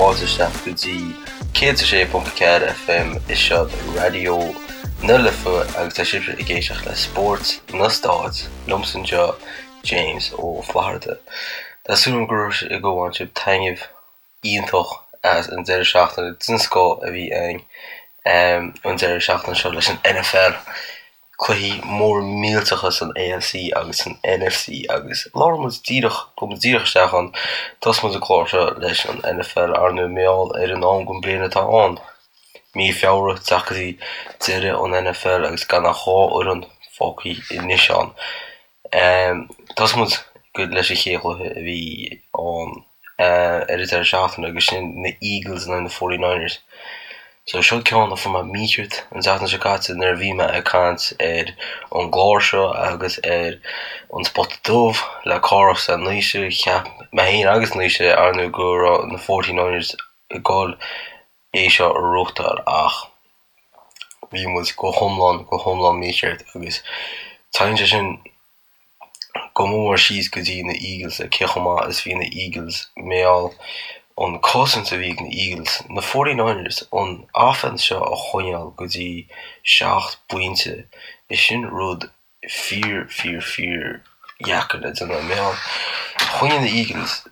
fáilte isteach go dtí 106.4 FM is seo Raidió na Life agus tá sibhse ag éisteacht le Spórt na Stát liomsa anseo James Ó Flatharta. Tá súil agam go raibh go bhain sibh taitneamh iontach as an deireadh seachtaine den scoth a bhí againn an deireadh seachtaine seo leis an NFL. Cluichí mór millteacha san AFC agus san NFC agus labhróidh muid díreach, gabhfaidh muid díreach isteach ann. Tosóidh muid an clár seo leis an NFL, ar ndóigh, mar gheall ar an am den bliain atá ann. Mí Feabhra, teacht go dtí deireadh an NFL agus gan ach 2 fhoireann fágtha anois ann. Tosóidh muid leis an chéad chluiche a bhí ann ar an deireadh seachtaine agus sin na Eagles in aghaidh na 49ers. So seo ceann a fuair mé mícheart an tseachtain seo caite nuair a bhí mé ag caint ar an gclár seo agus ar an Spota Dubh le Cárthach is le Naoise. Cheap mé féin agus Naoise ar ndóigh go raibh na 49ers ag dul é seo a ghnóthachtáil ach bhí muid go hiomlán, go hiomlán mícheart agus téann sé sin go mór síos go dtí na Eagles cé chomh maith is bhí na Eagles mar gheall an cosaint a bhí ag na Eagles, na 49ers, an offense seo a choinneáil go dtí 7 bpointe, is sin rud fíor, fíor, fíor dheacair le déanamh. Mar gheall, choinnigh na Eagles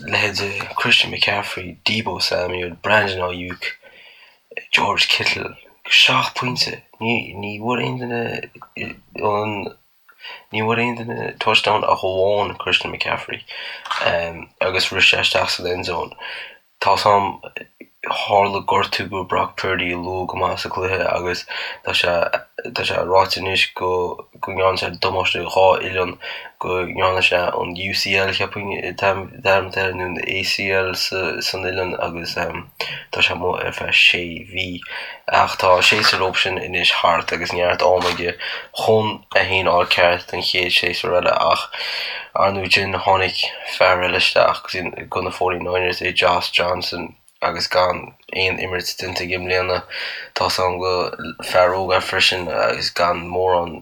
leithéide Christian McCaffrey, Deebo Samuel, Brandon Aiyuk, George Kittle, 7 pointe. Ní, ní bhfuair aon duine an, ní bhfuair aon duine touchdown ach amháin Christian McCaffrey agus rith sé isteach san end zone. Tá's a'm, tharla gortú go Brock Purdy luath go maith sa cluiche agus tá sé tá sé ráite anois go go ndearna sé damáiste dhá uillinn, go ndearna sé an UCL cheapfainn dearmad air nó an ACL sa san uillinn agus tá sé amuigh ar feadh sé mhí. Ach tá an séasúr leo sin anois thart agus neart ama aige chun é féin a fháil ceart don chéad séasúr eile ach ar ndóigh sin tháinig fear eile isteach go na 49ers é Josh Johnson agus gan aon imirt déanta aige i mbliana. Tá's a'm go fear óg é freisin agus gan mórán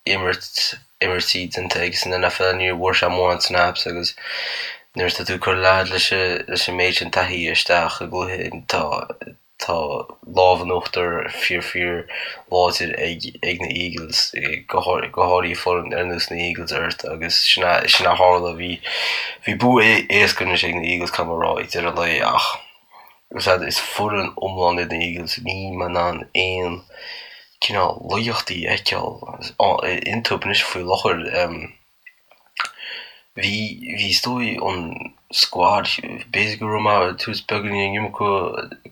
imirt imirtí déanta aige san NFL ní bhfuair sé mórán snaps agus nuair atá tú ag cur leaid leis an méid sin taithí isteach i gcluiche tá Tá lámh in uachtar fíor fíor láidir ag ag na Eagles, go háirithe foireann ar nós na Eagles ort agus sin a sin a tharla. Bhí bhí bua éasca anois ag na Eagles caithfidh mé a rá ag deireadh an lae ach is foireann iomlán iad na Eagles. Níl mé in ann aon cineál laigeachtaí a fheiceáil iontu anois faoi láthair. Bhí, bhí is dóigh an squad, b'fhéidir go raibh mé ag tabhairt beagáinín an iomarca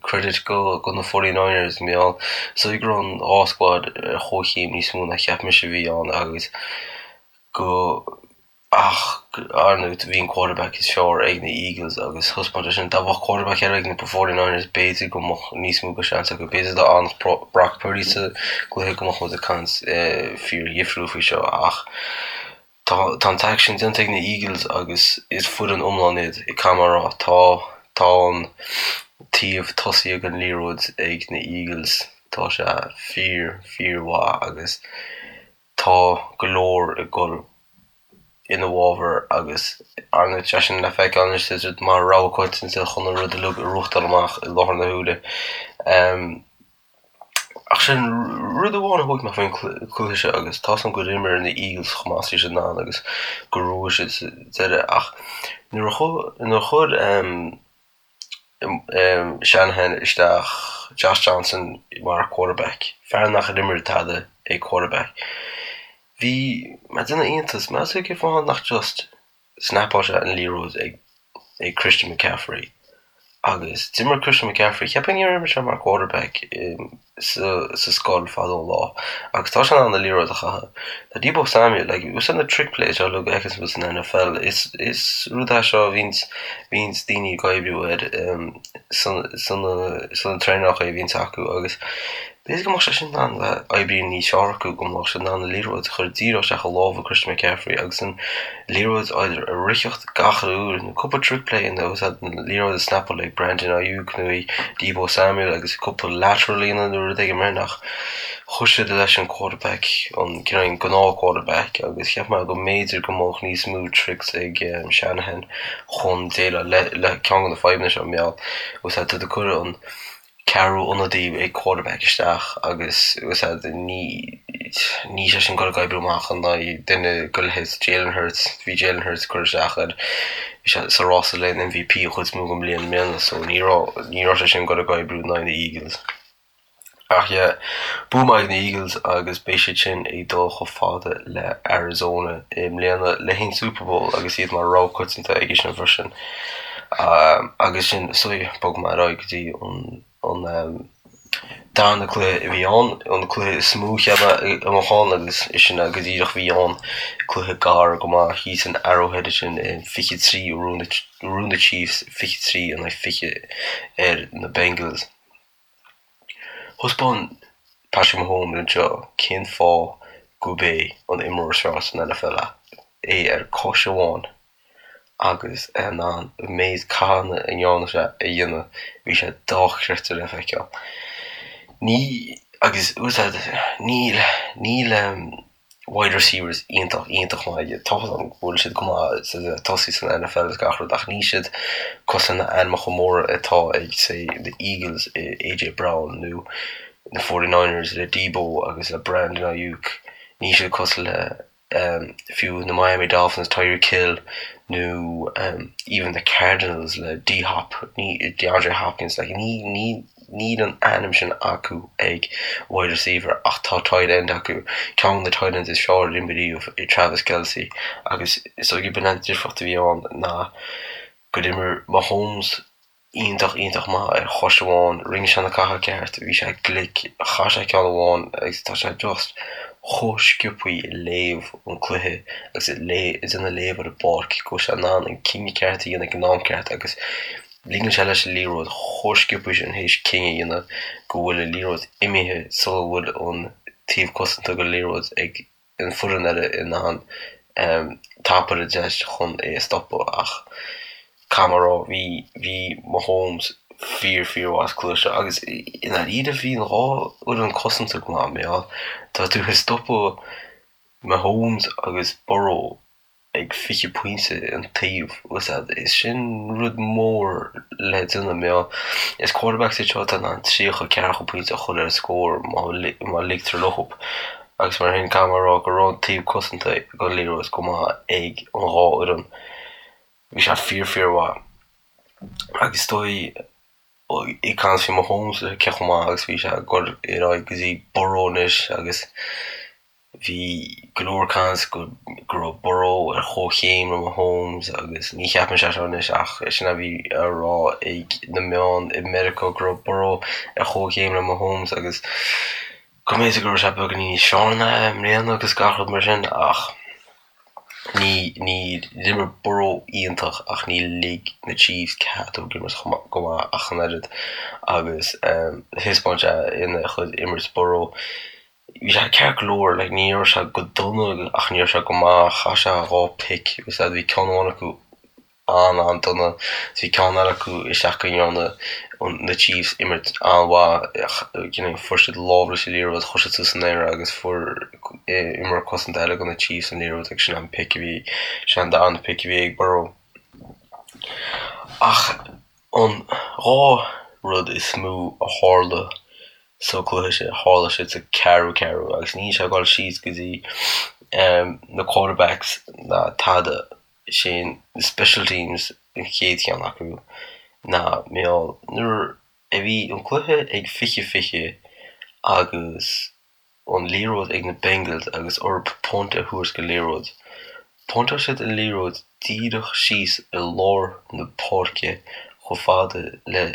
credit go, go na 49ers mar gheall, is dóigh go raibh an dhá squad ar chomhchéim níos mó ná cheap mise a bhí ann agus go, ach ar ndóigh bhí an quarterback is fearr ag na Eagles agus thaispeáin sé sin, dá mbeadh quarterback eile ag na 49ers b'fhéidir go mbeadh níos mó de seans acu, b'fhéidir dá bhfanfadh Brock Purdy sa gcluiche go mbeadh muid ag caint fíor dhifriúil faoi seo ach. Tá an t-aicsean déanta ag na Eagles agus is foireann iomlán iad, caithfidh mé a rá. Tá tá an taobh tosaigh den liathróid ag na Eagles, tá sé fíor, fíor mhaith agus tá go leor ag dul ina bhfabhar agus ar ndóigh tá sé sin le feiceáil anois tá siad mar rogha coitianta chun an rud uilig a ghnóthachtáil amach i láthair na huaire. Ach sin rud amháin a thóg mé faoin cluiche seo agus tá's agam gur imir na Eagles chomh maith is bhí siad in ann agus gur bhuaigh siad sa deireadh ach nuair a nuair a chuir Shanahan isteach Josh Johnson mar quarterback, fear nach ar imir tada ag quarterback, bhí mé ag déanamh iontas, meas tú cén fáth nach just snapáil sé an liathróid ag ag Christian McCaffrey agus d'imir Christian McCaffrey, cheapfainn gur imir sé mar quarterback sa sa scoil fadó an lá agus tá sé in ann an liathróid a chaitheamh. Tá Deebo Samuel, like, úsáid na trick plays seo uilig a fheiceanns muid san NFL, is is rud é seo a bhíonns bhíonns daoine ag oibriú air san san sna traenálacha a bhíonns acu agus. B'fhéidir go mbeadh sé sin in ann le oibriú níos fearr acu, go mbeadh siad in ann an liathróid a chur díreach isteach i lámha Christian McCaffrey agus an liathróid either a ritheacht gach uile uair nó cúpla trick play nó úsáid an liathróid a snapáil ag Brandon Aiyuk nó ag Deebo Samuel agus cúpla lateral a dhéanamh nó rud éigin mar sin ach chuir siad leis an quarterback, an cineál an gnáth quarterback agus cheap mé go mb'fhéidir go mbeadh níos mó tricks ag Shanahan chun déileáil le ceann de na fadhbanna seo, mar gheall tá tú ag cur an ceathrú ionadaí ag quarterback isteach agus ní níl sé sin ag goil ag oibriú amach in aghaidh duine de leithéid Jalen Hurts, bhí Jalen Hurts curtha isteach air, bhí sé sa rása le an MVP an chuid is mó den mbliain i mbliana so ní raibh ní raibh sé sin ag goil ag oibriú in aghaidh na Eagles. Ach yeah, bua maith ag na Eagles agus beidh siad sin ag dul chomh fada le Arizona i mbliana le haghaidh an Super Bowl agus iad mar rogha coitianta aige sin freisin. Agus sin, so bogfaidh mé ar aghaidh go dtí an darna cluiche a bhí ann, an cluiche is mó cheap mé a mbeadh ann agus sin é go díreach a bhí ann, cluiche gar go maith thíos in Arrowhead ansin, 23 a bhuaigh na Chiefs 23 in aghaidh 20 ar na Bengals. Thaispeáin Patrick Mahomes anseo cén fáth gurb é an imreoir is fearr san NFL é, é ar cois amháin agus é in ann an méid cathanna a ndearna sé a dhéanamh, bhí sé dochreidte le feiceáil. Ní, agus níl, níl. wide receivers iontach, iontach maith aige. Tá fhios agam go bhfuil siad go maith sa tosaí san NFL agus gach rud ach níl siad cosúil le na ainmeacha móra atá ag say the Eagles i AJ Brown nó na 49ers le Deebo agus le Brandon Aiyuk. Níl siad cosúil le fiú na Miami Dolphins Tyreek Hill nó even the Cardinals le D-Hop, DeAndre Hopkins like ní, ní, Níl an ainm sin acu ag wide receiver ach tá tight end acu, ceann de na tight ends is fearr a d'imir riamh i Travis Kelce agus is dóigh gurb in an difríocht a bhí ann ná gur imir Mahomes iontach, iontach maith ar chois amháin, rinne sé na catha ceart, bhí sé glic, chaith sé ceann amháin agus tá sé just chomh sciobthaí ag léamh an cluiche agus ag déanamh léamh ar an bpáirc go bhfuil sé in ann an cinneadh ceart a dhéanamh ag an am ceart agus Ligeann sé leis an liathróid chomh sciobtha sin théis cinneadh a dhéanamh go bhfuil an liathróid imithe sula bhfuil an taobh cosanta den liathróid ag an foireann eile in ann tapú ar an deis chun é a stopadh ach caithfidh mé a rá bhí bhí Mahomes fíor fíor mhaith sa cluiche seo agus i ndáiríre bhí an dhá fhoireann cosanta go maith mar gheall tá tú ag stopadh Mahomes agus Burrow ag 20 pointe an taobh, is sin rud mór le déanamh mar gheall is quarterbacks iad seo atá in ann 30, 40 pointe a chur ar an scór má ligtear leo. Agus mar sin caithfidh mé a rá go raibh an taobh cosanta den liathróid go maith ag an dhá fhoireann. Bhí sé fíor fíor mhaith. Agus is dóigh ag caint faoi Mahomes cé chomh maith agus bhí sé ag dul ar aghaidh go dtí Burrow anois agus Bhí go leor caint go raibh Burrow ar chomhchéim le Mahomes agus ní cheapann sé seo anois ach sin a bhí á rá ag na meáin i Meiriceá go raibh Burrow ar chomhchéim le Mahomes agus go mb'fhéidir go raibh sé beagáinín níos fearr ná é i mbliana agus gach rud mar sin ach ní ní d'imir Burrow iontach ach ní lig na Chiefs cead dó imirt go maith ach an oiread agus thaispeáin sé ina chuid imirt Burrow Bhí sé ceart go leor, like ní raibh sé go dona ach ní raibh sé go maith, chaith sé 2 pick agus bhí ceann amháin acu an-an-dona, bhí ceann eile acu isteach go ndearna na Chiefs imirt an-mhaith, you know fuair siad lámh leis an liathróid, chuir siad suas san aer agus fuair imreoir cosanta eile do na Chiefs an liathróid agus sin an pick a bhí, sin an darna pick a bhí ag Burrow. Ach an 2 rud is mó a tharla sa cluiche sin, tharla siad sa ceathrú ceathrú agus níl sé ag dul síos go dtí na quarterbacks ná tada, sin na special teams an chéad cheann acu ná mar gheall nuair a bhí an cluiche ag 20 20 agus an liathróid ag na Bengals agus orthu punt a thabhairt don liathróid. Phuntáil siad an liathróid díreach síos i lár na páirce chomh fada le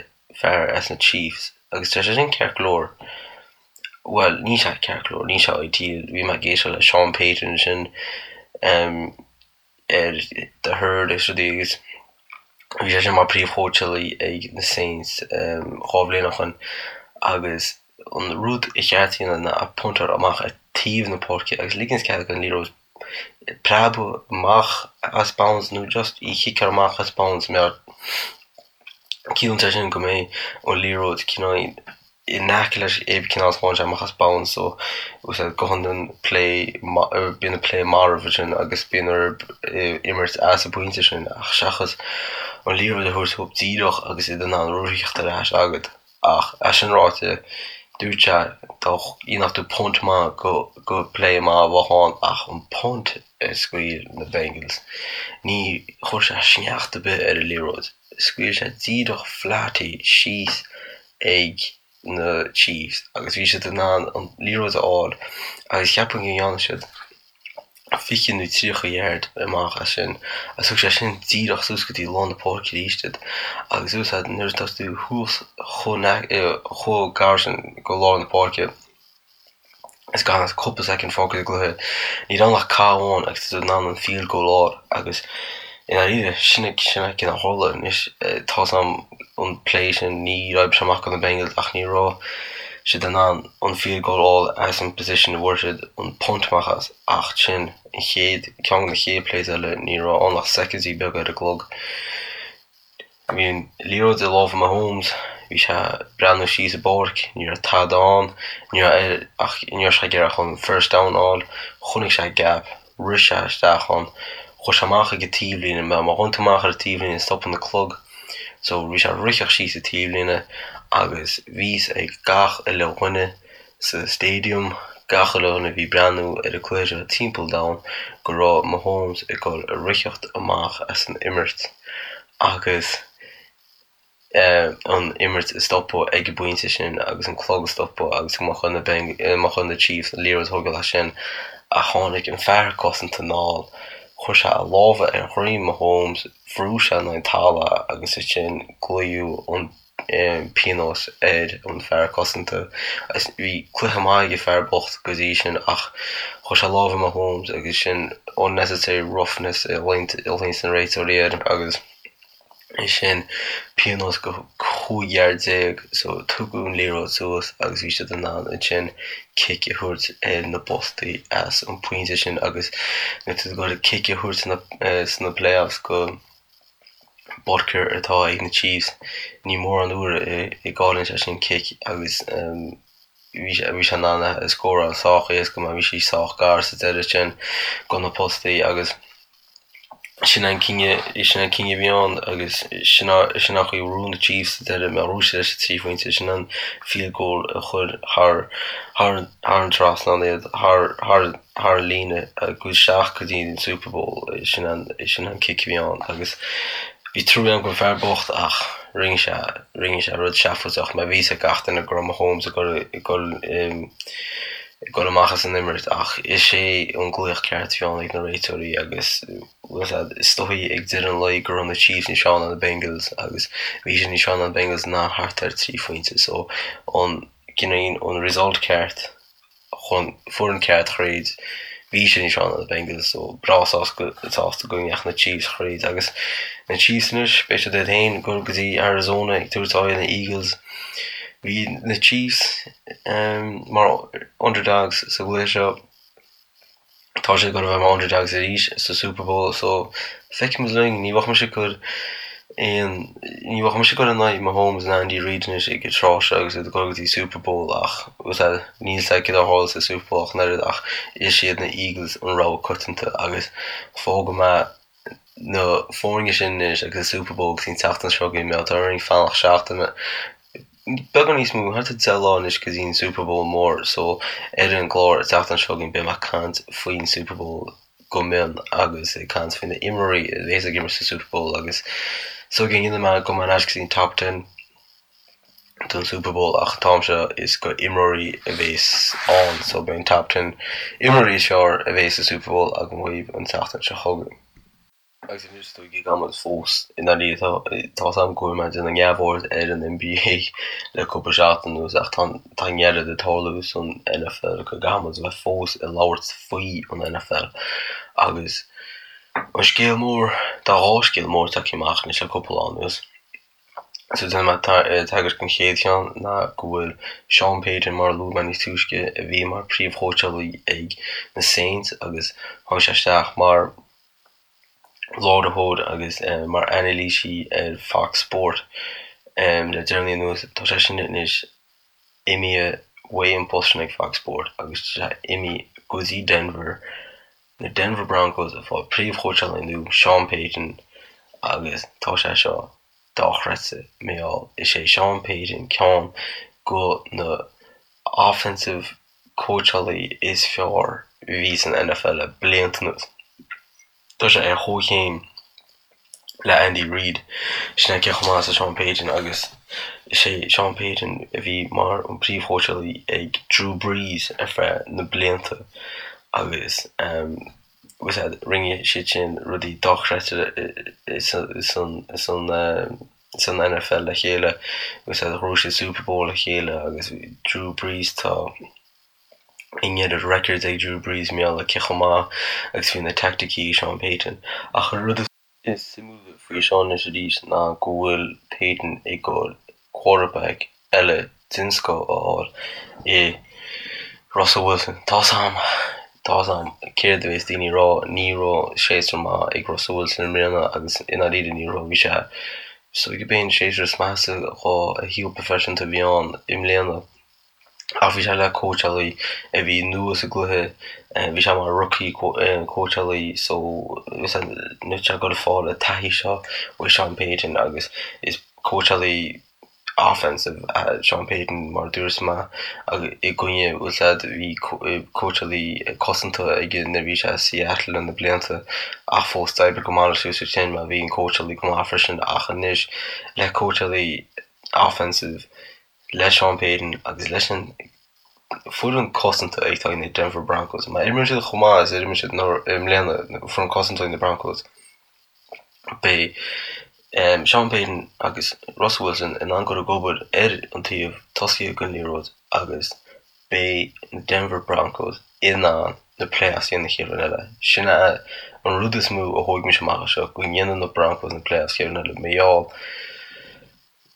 fear as na Chiefs agus tá sé sin ceart go leor. Bhuel, níl sé ceart go leor, níl sé ideal. Bhí mé ag éisteacht le Sean Payton ansin ar The Herd agus rudaí agus bhí sé sin mar príomhchóitseálaí ag na Saints 2 bhliain ó shin agus. An rud ba cheart a dhéanamh ná puntáil amach ar taobh na páirce agus ligint cead don liathróid preabadh amach as bounds nó just í chiceáil amach as bounds mar ciallaíonn sé sin go mbeidh an liathróid cineál in aice leis aon cineál is tháinig sé amach as bounds so go hiondúil play bíonn an play marbh ansin agus bíonn orthu imirt as an bpointe sin ach seachas an liathróid a thabhairt dóibh díreach agus iad in ann rith ar ais agat. Ach é sin ráite, dúirt sé dá ndéanfadh tú punt maith go play maith a bheadh ann ach an punt a scaoil na Bengals, ní chuir sé sneachta ar bith ar an liathróid. Scaoil sé díreach flat í síos ag na Chiefs agus bhí siad in ann an liathróid a fháil agus cheapfainn go ndearna siad 20 nó 30 yard amach as sin agus thug sé sin díreach suas go dtí lár na páirce arís iad agus úsáid nuair atá tú thuas chomh gar sin go lár na páirce is gan ach cúpla soicind fágtha sa gcluiche ní raibh ann ach cath amháin agus tá tú in ann an field goal a fháil agus i ndáiríre sin é sin é cén a tharla anois tá 's agam an play sin ní raibh sé amach do na Bengals ach ní raibh siad in ann an field goal a fháil as an position a bhfuair siad an punt amach as ach sin an chéad ceann de na chéad plays eile ní raibh ann ach soicindí beaga ar an gclog. Bhí an liathróid i lámha Mahomes, bhí sé ag breathnú síos an bpáirc, ní raibh tada ann, ní raibh ach ní raibh sé ag iarraidh ach an first down a fháil, chonaic sé gap, rith sé isteach ann, chuaigh sé amach ag an taobhlíne, má ghabhann tú amach ar an taobhlíne stopann an clog, so bhí sé ag ritheacht síos an taobhlíne agus bhí 'fhios ag gach uile dhuine sa stadium, gach uile dhuine a bhí ag breathnú ar an cluiche seo timpeall an domhain go raibh Mahomes ag dul a ritheacht amach as an imirt agus. an imirt a stopadh ag an bpointe sin agus an clog a stopadh agus go mbeadh ar na, mbeadh ar na Chiefs an liathróid a thógáil as sin ach tháinig an fear cosanta anall, chuir sé a lámha ar dhroim Mahomes, bhrú sé in aghaidh an talamh agus ansin glaodh an pionós ar an fear cosanta. Bhí cluiche maith ag an fear bocht go dtí sin ach chuir sé lámh ar Mahomes agus sin unnecessary roughness a ghlaonn na réiteoirí air agus. é sin pionós go 15 yard so tugadh an liathróid suas agus bhí siad in ann ansin cic a thabhairt ar na postaí as an pointe sin agus nuair atá tú ag dul cic a thabhairt sna playoffs go Butker atá ag na Chiefs ní mórán uair a gcailleann sé sin cic agus bhí sé in ann a scóráil sách éasca mar bhí sí sách gar sa deireadh sin go na postaí agus Sin an cinneadh, sin an cinneadh a bhí ann agus sin sin an chaoi a bhuaigh na Chiefs sa deireadh mar bhuaigh siad leis an 3 phointe, sin an field goal a chuir thar thar thar an trasnán iad, thar thar thar an líne agus isteach go dtí an Super Bowl, sin an sin an cic a bhí ann agus bhí trua agam don fear bocht ach rinne sé rinne sé rud seafóideach mar bhí fhios ag gach duine go raibh Mahomes ag dul ag dul ag dul amach as an imirt ach is é an glaoch ceart a bhí ann ag na réiteoirí agus is dóigh ag deireadh an lae go raibh na Chiefs níos fearr ná na Bengals agus bhí siad níos fearr ná na Bengals ná thart ar 3 phointe so an cineál an result ceart chun foireann ceart thríd bhí siad níos fearr ná na Bengals so breá sásta go ndeachaigh na Chiefs thríd agus na Chiefs anois beidh siad iad féin ag dul go dtí Arizona ag tabhairt aghaidh ar na Eagles. Bhí na Chiefs mar underdogs sa gcluiche seo. Tá siad ag dul a bheith mar underdogs arís sa Super Bowl so feicfimid linn. Ní bheadh mise ag cur aon, ní bheadh mise ag cur in aghaidh Mahomes ná Andy Reid anois ag an tráth seo agus iad ag dul go dtí Super Bowl ach níl fhios a'd céard a tharlós sa Super Bowl ach an oiread ach is iad na Eagles an rogha coitianta agus fágfaidh mé na foirne sin anois agus an Super Bowl go dtí an tseachtain seo chugainn, mar tá orainn fanacht seachtain, beagán níos mó, thart ar 10 lá anois go dtí an Super Bowl mór so ar an gclár an tseachtain seo chugainn beidh mé ag caint faoin Super Bowl go mion agus ag caint faoi na imreoirí a bhéas ag imirt sa Super Bowl agus so go ndéanfaidh mé gabhfaidh mé ar ais go dtí an Top Ten. don Super Bowl ach an t-am seo is go imreoirí a bhéas ann so beidh an top ten imreoirí is fearr a bhéas sa Super Bowl agam dhaoibh an tseachtain seo chugainn. Agus anois is dóigh go gcaithfidh muid fós i ndáiríre tá tá 's agam go bhfuil mé ag déanamh neamhaird ar an NBA le cúpla seachtain anuas ach tá tá an oiread ag tarlú san NFL go gcaithfidh muid a bheith fós ag labhairt faoi an NFL agus an scéal mór tá dhá scéal mór tagtha amach anois le cúpla lá anuas. So déanfaidh mé tagairt don chéad cheann ná go bhfuil Sean Payton, mar a luaigh mé níos túisce, a bhí mar príomhchóitseálaí ag na Saints agus tháinig sé isteach mar láithreoir agus mar anailísí ar Fox Sport le deireanaí anuas. Tá sé sin anois imithe uaidh an post sin ag Fox Sport agus tá sé imithe go dtí Denver, na Denver Broncos ag fáil príomhchóitseálaí nua, Sean Payton, agus tá sé seo dochreidte mar gheall is é Sean Payton ceann go na offensive cóitseálaí is fearr a bhí san NFL le blianta anuas. Tá sé ar chomhchéim le Andy Reid. Sin é cé chomh maith is Sean Payton agus is é Sean Payton a bhí mar an príomhchóitseálaí ag Drew Brees ar feadh na blianta agus rinne siad sin rudaí dochreidte san NFL le chéile agus ghnóthaigh siad Super Bowl le chéile agus Drew Brees tá an oiread records ag Drew Brees mar gheall ar cé chomh maith agus bhí na teaicticí ag Sean Payton ach an rud is Is suimiúla faoi seo anois arís ná go bhfuil Payton ag dul quarterback eile den scoth a fháil i Russell Wilson. Tá's a'm, tá's a'm céard a bhéas daoine ag rá, ní raibh séasúr maith ag Russell Wilson i mbliana agus i ndáiríre ní raibh, bhí sé, is dóigh gurb é an séasúr is measa dhá shaol proifisiúnta a bhí ann i mbliana. Ach bhí sé le cóitseálaí a bhí nua sa gcluiche, bhí sé mar rookie cóitseálaí so níl sé ag dul ag fáil an taithí seo ó Sean Payton agus is cóitseálaí offensive é Sean Payton mar a dúirt mé i gcoinne bhfuil 's a'd bhí cóitseálaí cosanta aige nuair a bhí sé i Seattle na blianta ach fós d'oibrigh go maith leis suas sin mar bhí an cóitseálaí go maith freisin ach anois le cóitseálaí offensive le Sean Payton agus leis an foireann cosanta atá ag na Denver Broncos. Má imríonn siad chomh maith is a d'imir siad i mbliana, foireann cosanta ag na Broncos, beidh Sean Payton agus Russell Wilson in ann dul ag obair ar an taobh tosaithe den liathróid agus beidh na Denver Broncos in ann na playoffs a dhéanamh an chéad bhliain eile. Sin é an rud is mó a thóg mise amach as seo, go ndéanann na Broncos na playoffs chéad bhliain eile. Mar gheall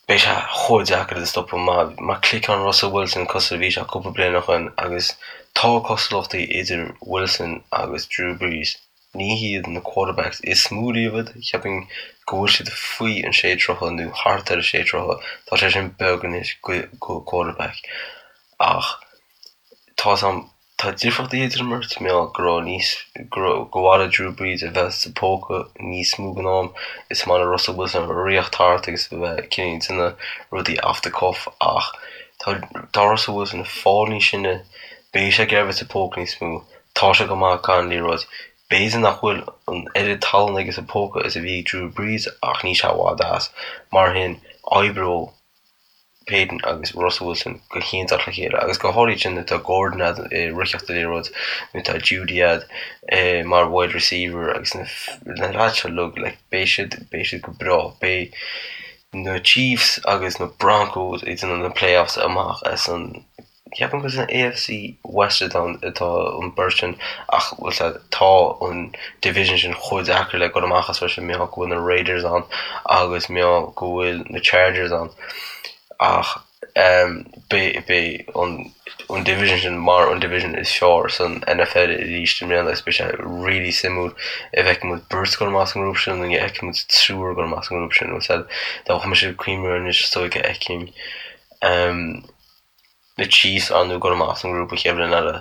Beidh sé chomh deacair iad a stopadh má cliceann Russell Wilson cosúil le bhí sé cúpla bliain ó shoin agus tá cosúlachtaí idir Wilson agus Drew Brees. Ní hiad na quarterbacks is mó riamh iad, cheapfainn go bhfuil siad faoi an sé troithe nó thart ar an sé troithe, tá sé sin beag anois go quarterback ach tá's a'm Tá difríochtaí idir an mbeirt, mar gheall go raibh níos, go raibh, gur mhaith le Drew Brees a bheith sa póca níos mó den am. Is maith le Russell Wilson rith thart agus a bheith cineál ag déanamh rudaí off the cuff ach tá, tá Russell Wilson ag fáil níos sine, beidh sé ag iarraidh a bheith sa póca níos mó, tá sé go maith gan liathróid. B'fhéidir nach bhfuil an oiread tallann aige sa póca is a bhí ag Drew Brees ach níl sé i bhfad as. Mar sin, oibreoidh. Payton agus Russell Wilson go hiontach le chéile agus go háirithe sin nuair atá Gordon a'd ag ritheacht an liathróid, nuair atá Jeudy a'd mar wide receiver agus na na lads seo uilig like beidh siad beidh siad go breá. Beidh na Chiefs agus na Broncos ag déanamh na playoffs amach as an Ceapaim gur san AFC West atá an bheirt sin ach bhfuil 's a'd tá an division sin chomh deacair le dul amach as freisin mar gheall go bhfuil na Raiders ann agus mar gheall go bhfuil na Chargers ann ach beidh beidh an an division sin mar an division is fearr san NFL arís i mbliana agus beidh sé really suimiúil an bhfeicfidh muid beirt ag dul amach as an ngrúpa sin nó an bhfeicfidh muid triúr ag dul amach as an ngrúpa sin bhfuil 's a'd dá mbeadh mise ag cuimhneamh anois is dóigh go bhfeicfinn na Chiefs ar ndóigh ag dul amach as an ngrúpa an chéad bhliain eile,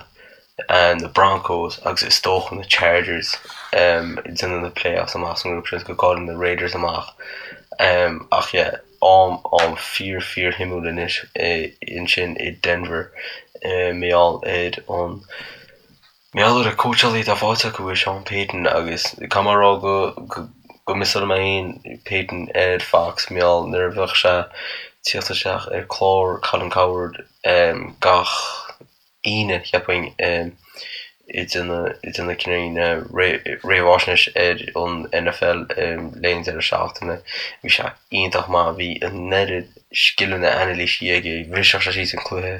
na Broncos agus is dócha na Chargers ag déanamh na playoffs amach as an ngrúpa sin go gcailleann na Raiders amach. Ach yeah, am am fíor fíor shuimiúil anois ansin i Denver mar gheall ar an Mar gheall ar an cóitseálaí atá faighte acu i Sean Payton agus caithfidh mé a rá go go miseáil mé féin Payton ar Fox mar gheall nuair a bheadh sé tíocht isteach ar clár Colin Cowherd gach Aoine cheapfainn ag déanamh ag déanamh cineál réamhaisnéis ar an NFL le linn deireadh seachtaine. Bhí sé iontach maith, bhí an oiread scileanna anailíse aige, bhriseadh sé síos an cluiche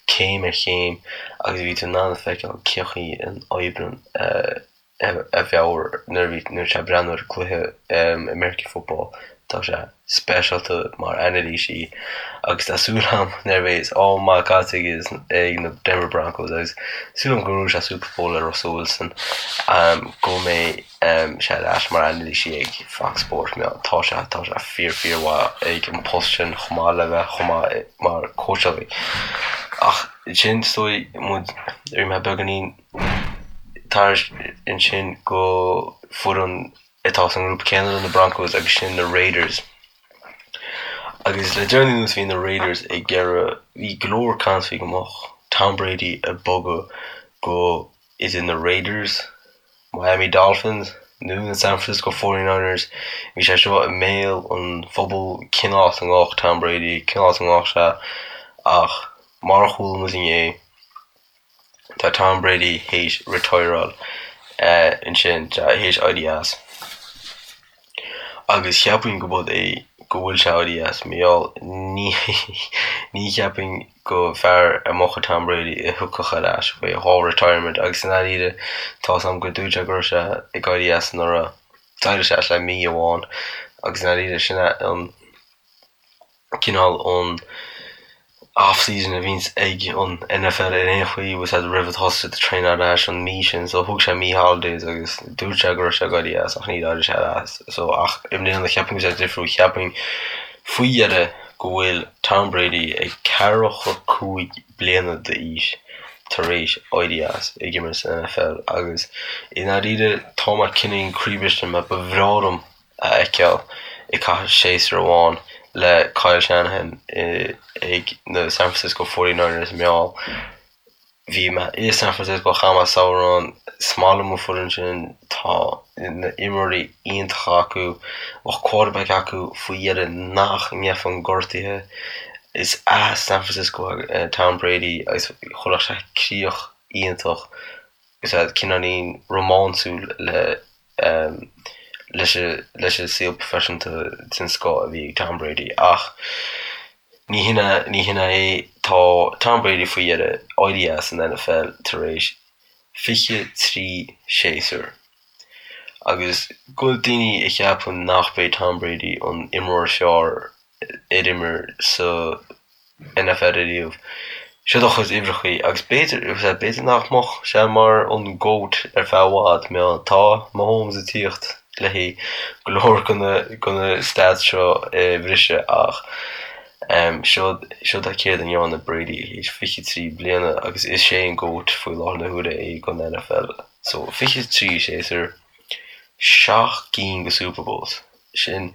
céim ar chéim agus bhí tú in ann a feiceáil cén chaoi a n-oibríonn a mheabhair nuair a bhí nuair sé ag breathnú ar an cluiche American Football. Tá sé speisialta mar anailísí agus tá súil agam nuair a bheidh am maith caite ag na Denver Broncos agus súil agam go ngnóthóidh sé Super Bowl le Russell Wilson go mbeidh sé ar ais mar anailísí ag Fox Sports. Tá sé tá sé fíor fíor mhaith ag an post sin chomh maith le bheith chomh maith mar cóitseálaí. Ach sin is dóigh muid ar mé beagáinín tar ansin go foireann atá sa ngrúpa céanna le na Broncos agus sin na Raiders. Agus le deireanaí anuas bhí na Raiders ag iarraidh, bhí go leor caint faoi go mbeadh Tom Brady ag bogadh go idir na Raiders, Miami Dolphins nó na San Francisco 49ers. Bhí sé seo i mbéal an phobail cén áit a ngabhfadh Tom Brady, cén áit a ngabhfadh sé ach mar a chuala muid inné, Tá Tom Brady théis retireáil ansin, théis éirí as. Agus cheapfainn go bud é go bhfuil sé éirí as, mar gheall ní ní cheapfainn go fear a mbeadh Tom Brady a thiocfadh ar ais faoi dhá retirement agus i ndáiríre tá's a'm gur dúirt sé go raibh sé ag éirí as anuraidh. D'éirigh sé as le mí amháin agus i ndáiríre sin é an cineál an off-season a bhíonns ag an NFL ar aon chaoi bhfuil siad roimh a thosaigh siad ag traenáil ar ais an mí sin so thug sé mí holidays agus dúirt sé go raibh sé ag éirí as ach níor éirigh sé as so ach i mbliana cheapfainn go bhfuil sé difriúil cheapfainn faoi dheireadh go bhfuil Tom Brady ag 45 bliana d'aois tar éis éirí as ag imirt san NFL agus i ndáiríre tá mé cineál croíbhriste mar ba bhreá liom a fheiceáil ag caitheamh séasúr amháin le Kyle Shanahan ag na San Francisco 49ers mar gheall bhí mé i San Francisco chaith mé samhradh ann is maith liom an foireann sin tá na imreoirí iontacha acu bheadh quarterback acu faoi dheireadh nach ngeibheann gortuithe is as San Francisco Tom Brady agus chuirfeadh sé críoch iontach is ea cineáilín rómánsúil le leis leis an saol proifisiúnta den scoth a bhí ag Tom Brady ach ní hin é ní hin é tá Tom Brady faoi dheireadh éirí as an NFL tar éis 23 séasúr agus go daoine a cheapann nach b'é Tom Brady an imreoir is fearr ar imir sa NFL ariamh. Siod a chuid uimhreachaí agus b'fhéidir, b'fhéidir nach mbeadh sé mar an GOAT ar feadh i bhfad, mar tá Mahomes ag tíocht le haghaidh go leor de na, de na stats seo a bhriseadh ach siod, siod é céard a ndearna Brady théis 23 bliana agus is é an GOAT faoi láthair na huaire é don NFL. So 23 séasúr, 7 gcinn de Super Bowls, sin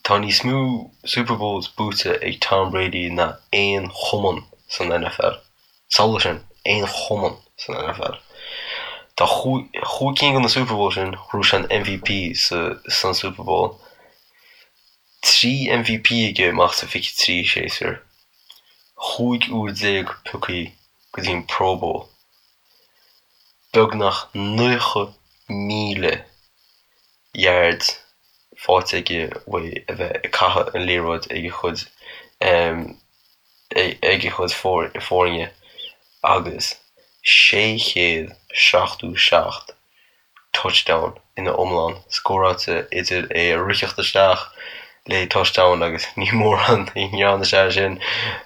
Tá níos mó Super Bowls buaite ag Tom Brady ná aon chumann san NFL. Samhlaigh sin, aon chumann san NFL. Tá chúig cinn de na Super Bowls sin, ghnóthaigh sé an MVP san Super Bowl. 3 MVP aige amach sa 23 séasúr. 15 uair pioctha go dtí an Pro Bowl. Beagnach 90,000 yard faighte aige uaidh a bheith ag caitheamh an liathróid ag a chuid ag a chuid foirne agus 677 touchdown ina iomlán scóráilte idir é a ritheacht isteach le touchdown agus ní mórán a ndearna sé sin.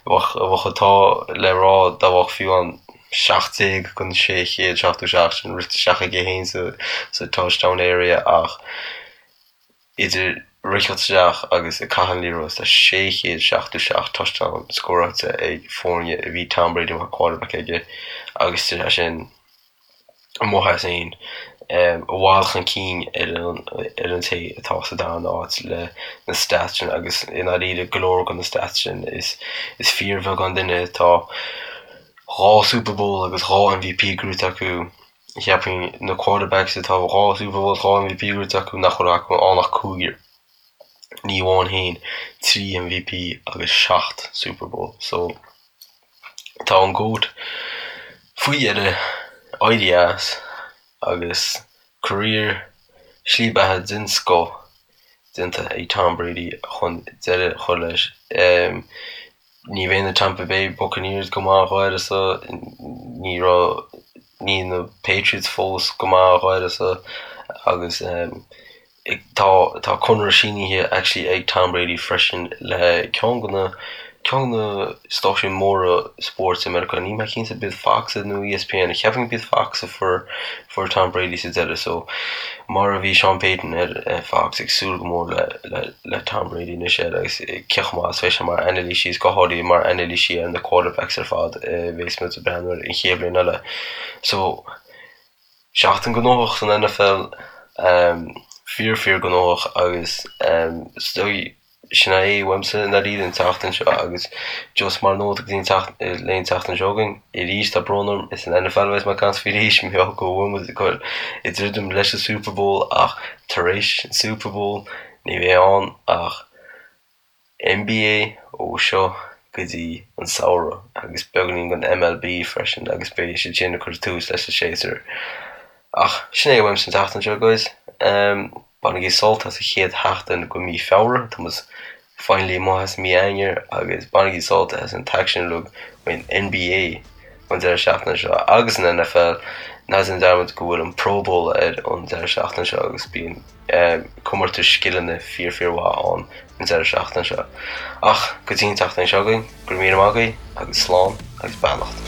Bheadh an t-ádh le rá dá mbeadh fiú an 17 den 677 sin rite isteach aige féin sa touchdown area ach idir ritheacht isteach agus ag caitheamh an liathróid tá 677 touchdown scóráilte ag foirne a bhí Tom Brady mar quarterback aige agus tá sé sin amuigh as aon i bhfad chun cinn ar an ar an té atá sa darna áit le na stats sin agus i ndáiríre go leor de na stats sin is is fíorbheagán duine atá 2 Super Bowl agus 2 MVP gnóite acu. Cheapfainn na quarterbacks atá 2 Super Bowl 2 MVP gnóite acu nach bhfuil acu ann ach cúigear. Ní amháin féin, 3 MVP agus 7 Super Bowl. So. Tá an GOAT faoi dheireadh éirithe as agus career, slí beatha den scoth déanta ag Tom Brady chun deireadh a chur leis. Ní bheidh na Tampa Bay Buccaneers go maith dh'áireasa, ní raibh, níl na Patriots fós go maith dh'áireasa agus. Tá tá conradh sínithe actually ag Tom Brady freisin le ceann de na ceann de na stáisiúin móra spóirt i Meiriceá. Níl mé cinnte b'iad Fox nó ESPN. Cheapfainn go b'iad Fox a fuair fuair Tom Brady sa deireadh so mar a bhí Sean Payton ar Fox ag súil go mór le le le Tom Brady anois air agus cé chomh maith is bheidh sé mar anailísí is go háirithe mar anailísí ar na quarterbacks ar fad a bheas muid ag breathnú air an chéad bhliain eile. So Seachtain gnóthach san NFL, fíor fíor gnóthach agus is dóigh sin é uaimse i ndáiríre an tseachtain seo agus just mar nóta go dtí an tseachtain le an tseachtain seo chugainn arís tá brón orm is an NFL a bheas mé ag caint faoi arís mar gheall go bhfuil muid ag dul ag druidim leis an Super Bowl ach tar éis an Super Bowl ní bheidh ann ach NBA ó seo go dtí an samhradh agus beagáinín den MLB freisin agus beidh siad sin ag cur tús leis an séasúr. Ach sin é uaimse an tseachtain seo guys. Bainigí sult as an chéad sheachtain de mhí Feabhra, tá muid finally amuigh as mí Eanáir agus bainigí sult as an t-aicsean uilig faoin NBA an deireadh seachtaine seo agus an NFL. Ná déan dearmad go bhfuil an Pro Bowl ar an deireadh seachtaine seo agus bíonn comórtas scileanna fíor fíor mhaith ann an deireadh seachtaine seo. Ach go dtí an tseachtain seo chugainn, go raibh míle maith agaibh agus slán agus beannacht.